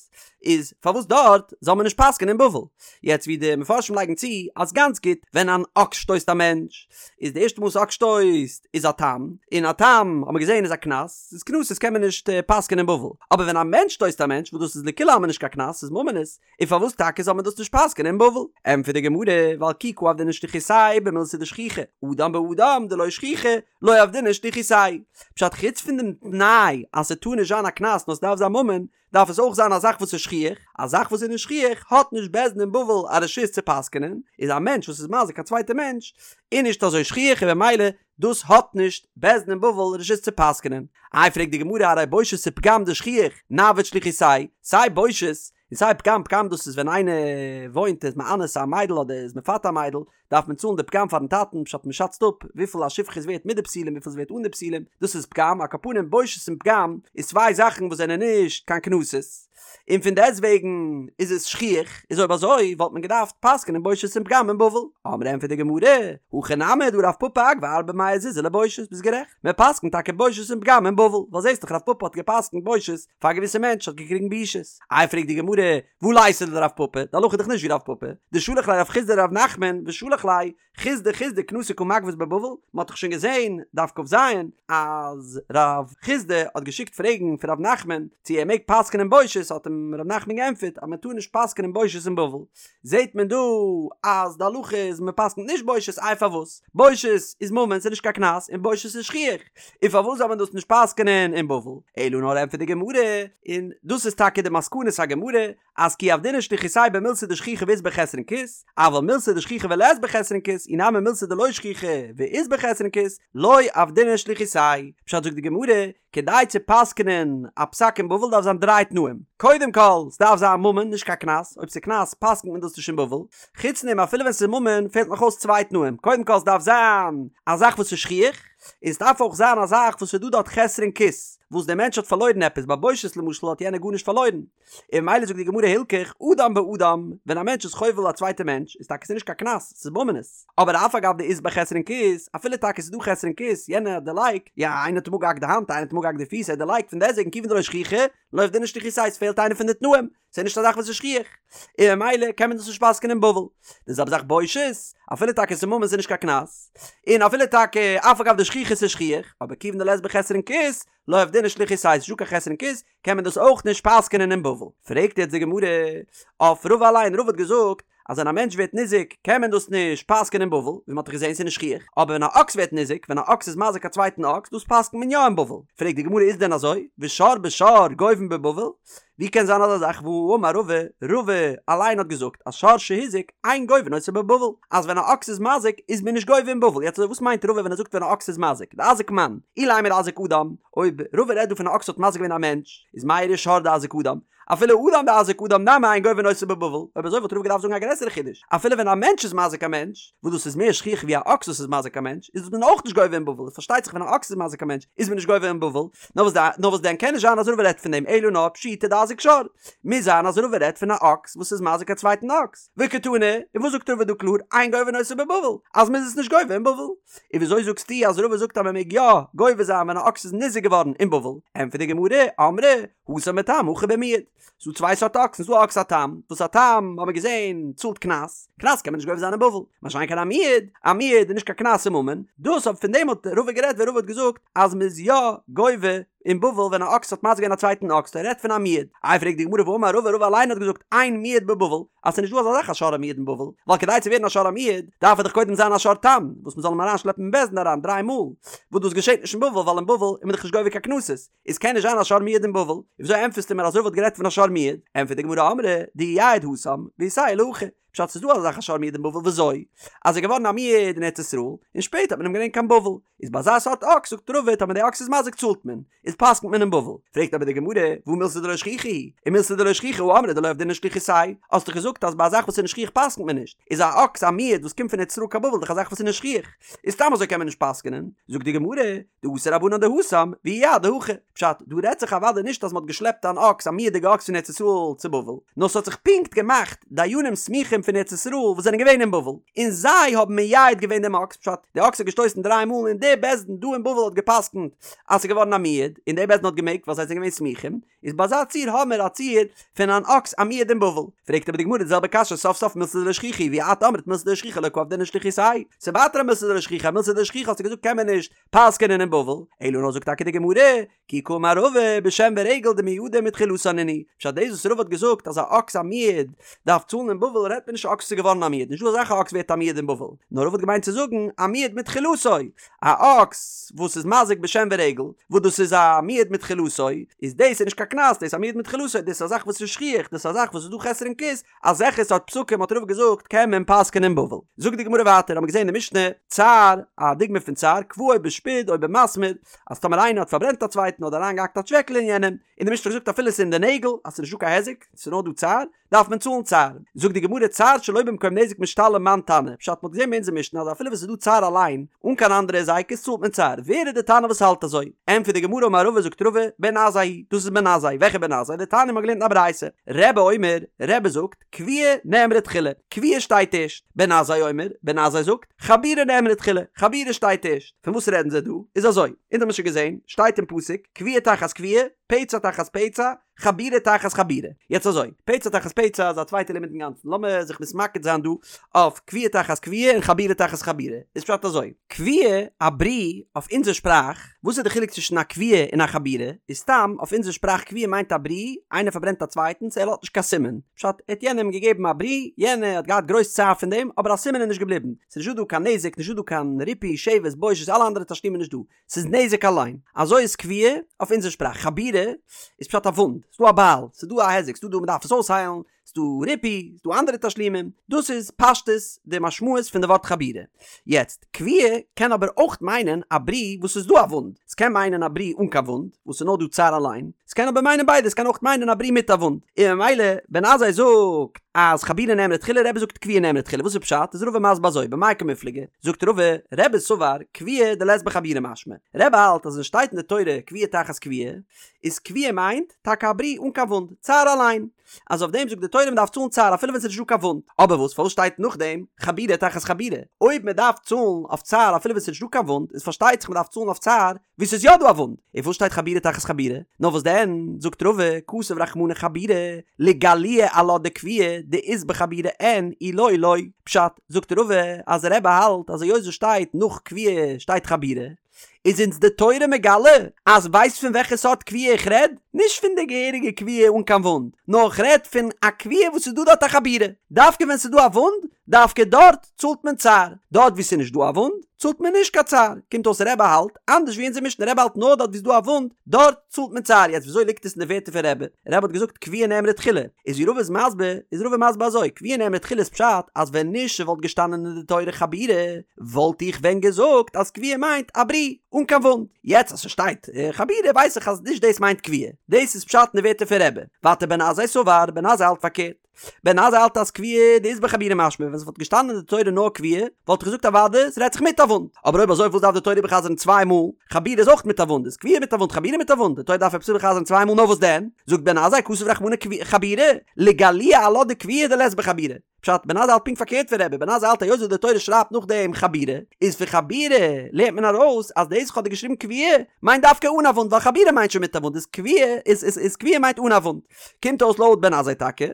איז פארוואס דארט זאל מען נישט פסק'ענען אין בבל? יעצט ווי די מפרשים לייגן צו אז גאנץ גוט, ווען אן אקס שטויסט א מענטש, איז די ערשטע מאל וואס אקס שטויסט איז א תם, און א תם האט מען געזען איז א קנס, איז קנסות קען מען נישט פסק'ענען אין בבל, אבער ווען א מענטש שטויסט א מענטש וואס דאס איז לכולי עלמא נישט קיין קנס, ס'איז ממונות, און פארוואס טאקע זאל מען דאס נישט פסק'ענען אין בבל? ענטפערט די גמרא, ווייל כי קא עבדינן שליחותייהו במילתא דשכיחא, אדם באדם דלא שכיחא, לא עבדינן שליחותייהו. פשט חוץ פון דעם תנאי אז ס'טאר נישט זיין א קנס נאר ס'דארף זיין ממון, דארף עס אויך זיין א זאך וואס איז שכיח, א זאך וואס איז נישט שכיח האט נישט בית דין אין בבל א רשות צו פסק'ענען, איז א מענטש וואס איז מזיק א צווייטע מענטש איז נישט אזוי שכיח און במילא דאס האט נישט בית דין אין בבל רשות צו פסק'נען. איי פרעגט די גמרא הרי בושת ופגם דשכיח נעביד שליחותייהו, סיי בושת און סיי פגם, פגם דאס איז ווען איינער וואוינט איז מאנס א מיידל אדער איז מפתה א מיידל דארף מען צאלן די פגם פארן טאטן פשט מען שאצט אפ וויפיל א שפחה איז ווערט מיט די בתולים וויפיל איז ווערט אן די בתולים דאס איז פגם, על כל פנים בושת און פגם איז צוויי זאכן וואס זענען נישט קיין קנסות. און פון דעסט וועגן איז עס שכיח, איז אויב אזוי וואלט מען געדארפט פסק'נען בושת און פגם אין בבל. אמרי ענטפערט די גמרא, הכא נמי דהא רב פפא אגבי ארבע מאה זוזי לבושת, ביסט גערעכט, מען פסק'נט טאקע בושת און פגם אין בבל, ווייל זעסט דאך רב פפא האט געפסק'נט בושת פאר א געוויסע מענטש האט געקריגן בושות. איי פרעגט די גמרא, והא ליתא לדרב פפא, די הלכה איז דאך נישט ווי רב פפא, דשלח ליה רב חסדא לרב נחמן ושלח ליה חסדא חסדא קנסא קא מגבית בבבל, מען האט דאך שוין געזען, דף כ"ז, אז רב חסדא האט געשיקט פרעגן פון רב נחמן צו ער מעג פסק'נען בושת, האט אים רב נחמן געענטפערט אז מען טאר נישט פסק'נען בושת אין בבל, זעט מען דא אז די הלכה איז מען פסק'נט נישט בושת, איי פארוואס? בושת איז ממון ס'איז נישט קיין קנס, און בושת איז שכיח, און פארוואס זאל מען דאס נישט פסק'נען אין בבל? אלא נאר ענטפערט די גמרא, און דאס איז טאקע די מסקנת הגמרא, אז כי עבדינן שליחותייהו במילתא דשכיחא ואית ביה חסרון כיס, אבל מילתא דשכיחא ולית ביה חסרון כיס, אי נמי מילתא דלא שכיחא ואית ביה חסרון כיס, לא עבדינן שליחותייהו. פשט זאגט די גמרא, כדי צו פסק'נען א פסק אין בבל דארף זיין דריי תנאים, קודם כל, ס'דארף זיין ממון, נישט קיין קנס, אויב ס'איז קנס פסק'נט מען דאס נישט אין בבל, חוץ דעם אפילו ווען ס'איז ממון פעלט נאך אויס צוויי תנאים, קודם כל ס'דארף זיין א זאך וואס איז שכיח, און ס'דארף אויך זיין א זאך וואס איז דא דארט חסרון כיס, וואס דער מענטש האט פארלוירן עפעס, ביי בושת למשל האט יענער גארנישט פארלוירן, און ממילא זאגט די גמרא הילכך אדם באדם, ווען א מענטש איז חובל א צווייטע מענטש איז טאקע ס'נישט קיין קנס, ס'איז ממונות, אבער אף על גב דאית ביה חסרון כיס, אפילו טאקע ס'איז דא חסרון כיס, יענער האט דערלייגט, יא איינער האט אים אפגעהאקט די האנט, איינער האט אים אפגעהאקט די פיס, ער האט דערלייגט, פון דעסטוועגן כיוון דלא שכיחא, לא עבדינן שליחותייהו, ס'פעלט איינע פון די תנאים, ס'איז נישט א זאך וואס איז שכיח, און ממילא קען מען דאס נישט פסק'ענען אין בבל. די זעלבע זאך בושת, אפילו טאקע ס'איז ממון ס'איז נישט קיין קנס, און אפילו טאקע אף על גב דשכיחא ס'איז שכיח, אבער כיוון דלית ביה חסרון כיס, לא עבדינן שליחותייהו, ס'איז נישטא קיין חסרון כיס, קען מען דאס אויך נישט פסק'נען אין בבל. פרעגט יעצט די גמרא אויף רבא אליין, רבא האט געזאגט אז ווען א מענטש ווערט ניזוק קען מען דאס נישט פסק'נען אין בבל, ווי מען האט דאך געזען ס'איז נישט שכיח, אבער ווען א אקס ווערט ניזוק, ווען א אקס איז מזיק א צווייטן אקס, דאס פסק'נט מען יא אין בבל. פרעגט די גמרא איז דען אזוי? ושור בשור גובין בבבל? ווי קען זיין אזא זאך והאמר רבא, רבא אליין האט געזאגט אז שור שהזיק אין גובין אותו בבבל, אז ווען א אקס איז מזיק איז מען נישט גובה אין בבל, יעצט וואס מיינט רבא ווען ער זאגט ווען א אקס איז מזיק, דאזיק מאן, אילימא דאזיק אדם, אויב רבא רעדט דא פון א אקס האט מזיק געווען א מענטש, איז מאי איריא שור דאזיק אדם, אפילו אדם דאזיק אדם נמי אין גובין אותו בבבל, אויב אזוי וואלט רבא געדארפט זאגן א גרעסערע חידוש, אפילו ווען א מענטש איז מזיק א מענטש, וואס דאס איז מער שכיח ווי א אקס וואס איז מזיק א מענטש, איז מען אויך נישט גובה אין בבל, פארשטייט זיך ווען א אקס איז מזיק א מענטש איז מען נישט גובה אין בבל, נאר וואס נאר וואס דען קען נישט זיין אז רבא רעדט פון דעם אלא נאר פשיטא דאזיק שור, מוז זיין אז רבא רעדט פון א אקס וואס איז מזיק א צווייטן אקס, וקתני, און וואס זאגט רבא דא קלאר, אין גובין אותו בבבל, אז מ'איז עס נישט גובה אין בבל. און וויאזוי זאגסטו אז רבא זאגט אז מ'מעג יא גובה זיין ווען א אקס איז ניזוק געווארן אין בבל? ענטפערט די גמרא, אמרי, התם בתם הכא במועד. ס'דא צוויי סארט אקסן, ס'דא א אקס א תם, וואס א תם האט מען געזען צאלט קנס, קנס קען מען נישט גובה זיין אין בבל, מה שאין כן א מועד, א מועד איז נישט קיין קנס ס'איז ממון, דאס אבער פון דעם האט רבא גערעדט ווען רבא האט געזאגט אז מ'איז יא גובה אין בבל ווען א אקס האט מזיק געווען א צווייטן אקס, ער רעדט פון א מועד. איי פרעגט די גמרא והאמר רבא, רבא אליין האט געזאגט אין מועד בבבל, אז ס'איז נישט דא אזא זאך א שור המועד אין בבל, ווייל כדי צו ווערן א שור המועד דארף ער דאך קודם זיין א שור תם, וואס מ'זאל אים אריינשלעפן אין בית דין אריין דריי מאל, וואס דאס געשעט נישט אין בבל ווייל אין בבל איז מען דאך נישט גובה קיין קנסות, איז קען נישט זיין א שור מועד אין בבל, און וויאזוי ענטפערסטו מיר אז רבא האט גערעדט פון א שור מועד? ענטפערט די גמרא אמרי דאייעד התם ואיתיה להכא. פשט ס'איז דא אזא זאך א שור מועד אין בבל וויאזוי? אז ער איז געווארן א מועד אין ארץ ישראל און שפעטער האט מען אים געברענגט קיין בבל, איז ביי אזא סארט אקס זאגט רבא טאמער די אקס איז מזיק צאלט מען, איז פסק'נט מען אין בבל. פרעגט אבער די גמרא, והא מילתא דלא שכיחא היא, ומילתא דלא שכיחא הא אמרת דלא עבדינן שליחותייהו, האסט דאך געזאגט אז ביי א זאך וואס איז נישט שכיח פסק'נט מען נישט, איז א אקס א מועד וואס קומט פון ארץ ישראל קיין בבל דאך א זאך וואס איז נישט שכיח, איז סתם אזוי קען מען נישט פסק'נען, זאגט די גמרא, דאתו רבנן דהתם, ואייעדו הכי, פשט, דא רעדט זיך אוודאי נישט אז מ'האט געשלעפט אן אקס א מועד'יגע אקס פון ארץ ישראל צו בבל, נאר ס'האט זיך פונקט געמאכט דיינים סמוכים פון ארץ ישראל וואס זענען געווען אין בבל, און זיי האבן מייעד געווען דעם אקס, פשט, די אקס האט געשטויסן דריי מאל און דער בית דין דא אין בבל האט געפסקנט אז ס'איז געווארן א מועד, און דער בית דין האט געמעגט ווייל זיי זענען געווען סמוכים, איז ביי אזא ציור האמיר א ציור פון אן אקס א מועד אין בבל. פרעגט אבער די גמרא די זעלבע קשיא סוף סוף מילתא דלא שכיחא היא ואי את אמרת מילתא דלא שכיחא לא קא עבדינן שליחותייהו, ס'איז ווייטער א מילתא דלא שכיחא, א מילתא דלא שכיחא האסטו געזאגט קען מען נישט פסק'ענען אין בבל, אלא נאר זאגט טאקע די גמרא, כי קאמר רבא בשן ורגל דמועדין מתחילתן נינהו, פשט דאס וואס רבא האט געזאגט אז א אקס א מועד דארף צאלן אין בבל רעדט מען נישט א אקס איז געווארן א מועד, נישטא אזא זאך א אקס ווערט א מועד אין בבל, נאר רבא האט געמיינט צו זאגן א מועד מתחילתו, א אקס וואס איז מזיק בשן ורגל, וואס דאס איז א מועד מתחילתו, איז דאס איז נישט קיין קנס, דאס איז א מועד מתחילתו, דאס איז א זאך וואס איז שכיח, דאס איז א זאך וואס איז דא חסרון כיס, אזעלכע סארט פסקים האט רבא געזאגט קען מען פסק'ענען אין בבל. זאגט די גמרא ווייטער, האמיר געזען אין די משנה, צער, א דוגמא פון צער, כוואו בשפוד או במסמר, אז טאמער איינער האט פארברענט א צווייטן אדער אריינגעהאקט א טשוועקל אין יענעם, און די משנה האט געזאגט אפילו עס איז אין די נעגל, אז ס'איז נישטא קיין היזק, ס'איז נאר דא צער, דארף מען צאלן צער. זאגט די גמרא צער שלא במקום נזק משתלם מאן תנא, פשט מ'האט געזען ביי אונזער משנה אז אפילו ווען ס'איז דא צער אליין, אן קיין אנדערע היזקות צאלט מען צער, ווער איז די תנא וואס האלט אזוי? ענטפערט די גמרא אמר רבא זאגט רבא, בן עזאי היא, דאס איז בן עזאי, וועלכע בן עזאי? דתניא מ'האט געלערנט אין א ברייתא, רבי אומר, רבי זאגט, כויה נאמרה תחילה, כויה שטייט ערשט, בן עזאי אומר, בן עזאי זאגט, חבורה נאמרה תחילה, חבורה שטייט ערשט, פון וואס רעדן זיי דא? איז אזוי, אונז האבן שוין געזען, שטייט אין פסוק, כויה תחת כויה, פצע תחת פצע, חבורה תחת חבורה. יעצט אזוי, פצע תחת פצע איז א צווייטע לימוד אינגאנצן, לאמיר זיך מתמקד זיין דא אויף כויה תחת כויה און חבורה תחת חבורה. איז פשט אזוי, כויה, א ברי, אויף אונזער שפראך, וואס איז די חילוק צווישן א כויה און א חבורה? איז סתם, אויף אונזער שפראך כויה מיינט א ברי, איינער פארברענט א צווייטנס, ער לאזט נישט קיין סימן. פשט, ער האט יענעם געגעבן א ברי, יענער האט געהאט גרויס צער פון דעם, אבער א סימן איז נישט געבליבן. ס'איז נישטא דא קיין נזק, נישטא דא קיין ריפוי, שבת, בושת, אלע אנדערע תשלומים נישט דא. ס'איז נזק אליין. אזוי איז כויה אויף אונזער שפראך. חבורה איז פשט א וואונד. ס'דא א בייל, ס'איז דא א היזק, ס'דא דא מ'דארף עס אויסהיילן, ס'דא ריפוי, ס'דא אנדערע תשלומים. דאס איז פשטות די משמעות פון די ווארט חבורה. יעצט, כויה קען אבער אויך מיינען א ברי וואס ס'איז דא א וואונד. ס'קען מיינען א ברי אן קיין וואונד, וואס ס'איז נאר דא צער אליין. ס'קען אבער מיינען ביידע, ס'קען אויך מיינען א ברי מיט א וואונד. און ממילא, בן עזאי זאגט אז חבורה נאמרה תחילה, רבי זאגט כויה נאמרה תחילה. וואס איז פשט? איז רבא מסביר אזוי, במאי קמיפלגי? זאגט רבא, רבי סבר, כויה דלית בה חבורה משמע. רבי האלט אז ווען שטייט אין די תורה כויה תחת כויה, איז כויה מיינט טאקע א ברי אן קיין וואונד, צער אליין. אז אויף דעם זאגט די תורה מען דארף צאלן צער אפילו ווען ס'איז נישטא קיין וואונד. אבער וואס פארוואס שטייט נאכדעם חבורה תחת חבורה? אויב מען דארף צאלן אויף צער אפילו ווען ס'איז נישטא קיין וואונד, איז פארשטייט זיך מען דארף צאלן אויף צער וואו ס'איז יא דא א וואונד. און פארוואס שטייט חבורה תחת חבורה? נאר וואס דען, זאגט רבא, כתב רחמנא חבורה, לגלויי עלה דכויה דאית בה חבורה אין אי לא לא. פשט, זאגט רבא אז רבי האלט אז היות עס שטייט נאך כויה שטייט חבורה, איז אונז די תורה מגלה אז ווייסט פון וועלכע סארט כויה איך רעד? נישט פון די געהעריגע כויה אן קיין וואונד, נאר איך רעד פון א כויה וואס איז דא דארט א חבורה. דווקא ווען ס'איז דא א וואונד, דווקא דארט צאלט מען צער, דארט וואו ס'איז נישט דא א וואונד, צאלט מען נישט קיין צער. קומט אויס רבי האלט אנדערש ווי אונזער משנה, רבי האלט נאר דארט וואו ס'איז דא א וואונד, דארט צאלט מען צער. יעצט וויאזוי ליגט עס אין די ווערטער פון רבי? רבי האט געזאגט כויה נאמרה תחילה, איז ווי רבא איז מסביר, איז רבא מסביר אזוי, כויה נאמרה תחילה איז פשט אז ווען נישט ס'וואלט געשטאנען אין די תורה חבורה, וואלט איך ווען געזאגט אז כויה מיינט א ברי, אן קיין וואונד. יעצט אז ס'שטייט חבורה ווייס איך אז נישט דאס מיינט כויה. דאס איזפשט אין די ווערטער פון רבי. ווייטער בן עזאי סבר, בן עזאי האלט פארקערט. בן עזאי האלט אז כויה דאית בה חבורה משמע, ווען ס'וואלט געשטאנען אין די תורה נאר כויה, וואלט איך געזאגט אוודאי, ס'רעדט זיך מיט א וואונד. אבער אויב אזוי וואס דארף די תורה איבערחזר'ן צוויי מאל? חבורה איז אויך מיט א וואונד, איז כויה מיט א וואונד, חבורה מיט א וואונד, די תורה דארף עפעס איבערחזר'ן צוויי מאל נאר וואס דען? זאגט בן עזאי כתב רחמנא חבורה, לגלויי עלה דכויה דלית בה חבורה. פשט, בן עזאי האלט פונקט פארקערט פון רבי, בן עזאי האלט היות וואס די תורה שרייבט נאכדעם חבורה, איז פון חבורה לערנט מען ארויס אז דאס כ'האב דיר געשריבן כויה מיינט דווקא אן א וואונד ווייל חבורה מיינט שוין מיט א וואונד איז כויה איז איז איז כויה מיינט אן א וואונד. קומט אויס לויט בן עזאי טאקע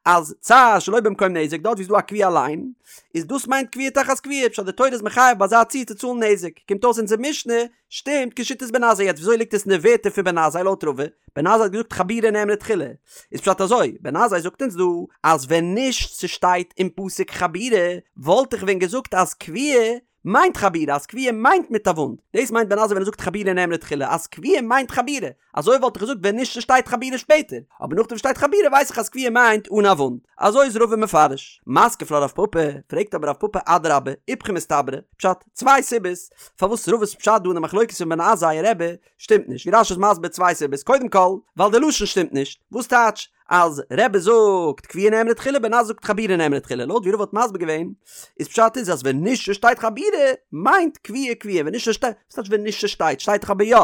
אז צער שלא במקום נזק דארט ווי ס'איז דא א כויה אליין איז דאס מיינט כויה תחת כויה פשט די תורה איז מחייב ביי אזא ציור צו צאלן נזק קומט אויס אונזער משנה שטימט כשיטת בן עזאי יעצט וויאזוי ליגט עס אין די ווערטער פון בן עזאי לויט רבא בן עזאי האט געזאגט חבורה נאמרה תחילה איז פשט אזוי בן עזאי זאגט אונז דא אז ווען נישט ס'שטייט אין פסוק חבורה וואלט איך ווען געזאגט אז כויה. מיינט חבורה אז כויה מיינט מיט א וואונד, דאס מיינט בן עזאי ווען ער זאגט חבורה נאמרה תחילה אז כויה מיינט חבורה, אזוי וואלט איך געזאגט ווען נישט ס'שטייט חבורה שפעטער, אבער נאכדעם שטייט חבורה ווייס איך אז כויה מיינט אן א וואונד. אזוי איז רבא מפרש. מתקיף לה רב פפא, פרעגט אבער רב פפא אדרבה, איפכא מסתברא, פשט, צוויי סיבות פארוואס רבא'ס פשט דא אין די מחלוקת פון בן עזאי און רבי שטימט נישט, ווי רש"י איז מסביר צוויי סיבות, קודם כל, ווייל די לשון שטימט נישט, וואס טייטש אז רבי זאגט כויה נאמרה תחילה בן עזאי זאגט חבורה נאמרה תחילה, לויט ווי רבא האט מסביר געווען, איז פשט איז אז ווען נישט ס'שטייט חבורה מיינט כויה כויה, ווען נישט ס'שטייט, וואס טייטש ווען נישט ס'שטייט, שטייט דאך אבער יא,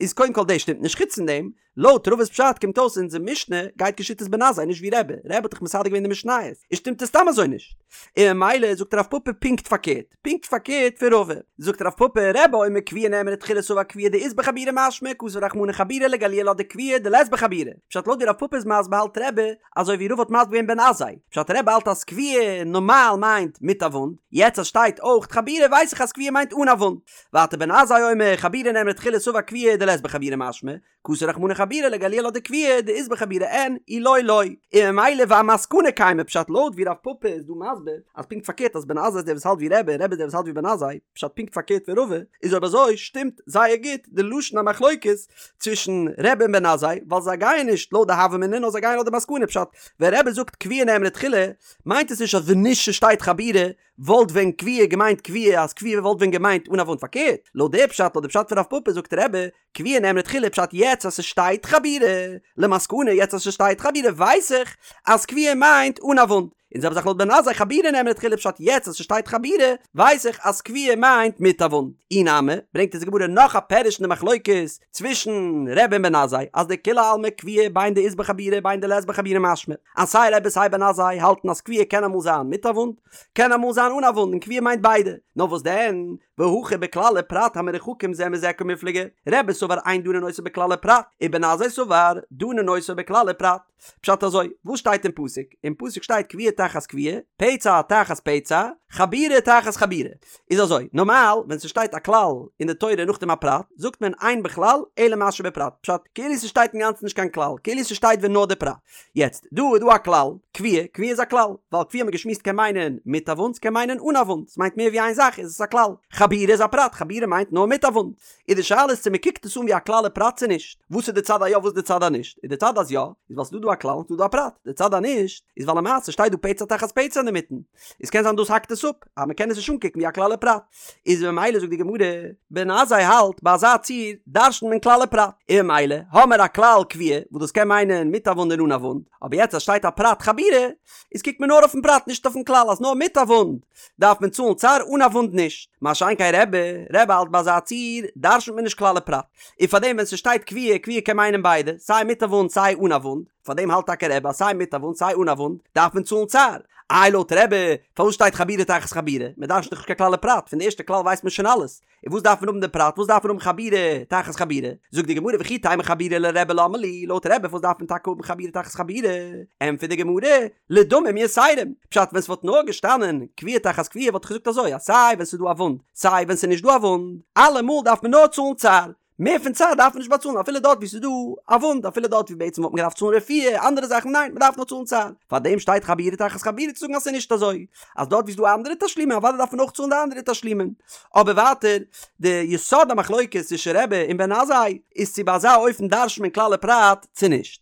איז קודם כל דאס שטימט נישט, חוץ פון דעם, לויט רבא'ס פשט קומט אויס אונזער משנה גייט כשיטת בן עזאי נישט ווי רבי, רבי האט דאך מסדר געווען די משניות, איז שטימט עס סתם אזוי נישט. און ממילא זאגט רב פפא פונקט פארקערט, פונקט פארקערט פון רבא. זאגט רב פפא, רבי אומר כויה נאמרה תחילה סבר כויה דאית בה חבורה משמע כתב רחמנא חבורה לגלויי לה דכויה דלית בה חבורה. פשט לויט ווי רב פפא איז מסביר האלט רבי אזוי ווי רבא האט מסביר געווען בן עזאי. פשט רבי האלט אז כויה נארמאל מיינט מיט א וואונד, יעצט אז שטייט אויך חבורה ווייס איך אז כויה מיינט אן א וואונד. ווייטער בן עזאי אומר חבורה נאמרה תחילה סבר כויה דלית בה חבורה משמע, כתב רחמנא חבורה לגלויי לה דכויה דאית בה חבורה אין אי לא לא, און ממילא ואמסקנא קיימא פשט לויט ווי רב פפא איז דא מסביר אז פונקט פארקערט אז בן עזאי איז דער וואס האלט ווי רבי און רבי איז דער וואס האלט ווי בן עזאי פשט פונקט פארקערט פון רבא איז אויב אזוי שטימט זייער גוט די לשון המחלוקת צווישן רבי און בן עזאי ווייל זיי גייען נישט לויט די הוה אמינא נאר זיי גייען לויט די מסקנא פשט ווען רבי זאגט כויה נאמרה תחילה מיינט עס נישט אז ווען נישט ס'שטייט חבורה וואלט ווען כויה געמיינט כויה אז כויה וואלט ווען געמיינט אן א וואונד פארקערט לויט די פשט לויט די פשט פון רב פפא זאגט רבי כויה נאמרה תחילה פשט יעצט אז ס'שטייט חבורה, למסקנא יעצט אז ס'שטייט חבורה ווייס איך אז כויה מיינט אן א וואונד, און זעלבע זאך לויט בן עזאי חבורה נאמרה תחילה פשט יעצט אז ס'שטייט חבורה ווייס איך אז כויה מיינט מיט א וואונד. אי נמי, ברענגט אונז די גמרא נאך א פירוש אין די מחלוקת צווישן רבי און בן עזאי אז דכולי עלמא כויה בין דאית בה חבורה בין דלית בה חבורה משמע אז סיי רבי סיי בן עזאי האלטן אז כויה קען אמאל זיין מיט א וואונד קען אמאל זיין אן א וואונד און כויה מיינט ביידע נאר וואס דען והכא בכלל ופרט המרוחקים זה מזה קמיפלגי, רבי סבר אין דנין אותו בכלל ופרט, ובן עזאי סבר דנין אותו בכלל ופרט. פשט אזוי, וואס שטייט אין פסוק? אין פסוק שטייט כויה תחת כויה, פצע תחת פצע, חבורה תחת חבורה. איז אזוי, נארמאל ווען ס'שטייט א כלל אין די תורה נאכדעם א פרט, זאגט מען אין בכלל אלא מה שבפרט. פשט, כאילו ס'שטייט אינגאנצן נישט קיין כלל, כאילו ס'שטייט ווען נאר די פרט. יעצט, דא איז דא א כלל, כויה, כויה איז א כלל, ווייל כויה האט מען געשמועסט קען מיינען מיט א וואונד, ס'קען מיינען אן א וואונד, ס'מיינט מער ווי איין זאך איז עס א כלל. חבורה איז א פרט, חבורה מיינט נאר מיט א וואונד. איז די שאלה איז צו מ'קוקט עס אן ווי א כלל ופרט צו נישט. וואס איז די צד אז יא וואס איז די צד אז נישט? איז די צד אז יא, איז ווייל ס'איז דא דא א כלל און ס'איז דא דא א פרט. די צד אז נישט, איז ווייל למעשה שטייט דא פצע תחת פצע אינדערמיטן. איז קען זיין דאס האקט עס אפ, אז מ'קען עס נישט אנקוקן ווי א כלל ופרט. איז ממילא זאגט די גמרא, בן עזאי האלט ביי אזא ציור דרש'נט מען כלל ופרט, און ממילא האמער א כלל כויה וואס דאס קען מיינען מיט א וואונד און אן א וואונד, אבער יעצט אז שטייט א פרט חבורה, איז קוקט מען נאר אויפן פרט נישט אויפן כלל אז נאר מיט א וואונד דארף מען צאלן צער אן א וואונד נישט, מה שאין כן רבי, רבי האלט ביי אזא ציור דרש'נט מען נישט כלל ופרט, און פארדעם ווען ס'שטייט כויה, כויה קען מיינען ביידע, סיי מיט א וואונד סיי אן א וואונד. פאר דעם האלט טאקע רבי אז סיי מיט א וואונד סיי אן א וואונד דארף מען צאלן צער. איי לויט רבי פארוואס שטייט חבורה תחת חבורה? מען דרש'נט דאך נישט קיין כלל ופרט, פון די ערשטע כלל ווייסט מען שוין אלעס, און וואס דארף מען האבן די פרט, וואס דארף מען האבן חבורה תחת חבורה? זאגט די גמרא וכי תימא חבורה לרבי למה לי, לויט רבי פארוואס דארף מען טאקע האבן חבורה תחת חבורה? ענטפערט די גמרא, לדמים יתרים, פשט ווען ס'וואלט נאר געשטאנען כויה תחת כויה וואלט איך געזאגט אזוי אז סיי ווען ס'איז דא א וואונד סיי ווען ס'איז נישט דא א וואונד אלעמאל דארף מען נאר צאלן צער, מער פון צער דארף מען נישט באצאלן אפילו דארט וואו ס'איז דא א וואונד, אפילו דארט וואו בעצם וואלט מען געדארפט צאלן רפואה, אנדערע זאכן, ניין, מ'דארף נאר צאלן צער. פארדעם שטייט חבורה תחת חבורה צו זאגן אז ס'איז נישט אזוי, אז דארט וואו ס'איז דא אנדערע תשלומים אוודאי דארף מען אויך צאלן די אנדערע תשלומים. אבער ווייטער, די יסוד המחלוקת צווישן רבי און בן עזאי איז צו ביי אזא אופן דרש'נט מען כלל ופרט צו נישט.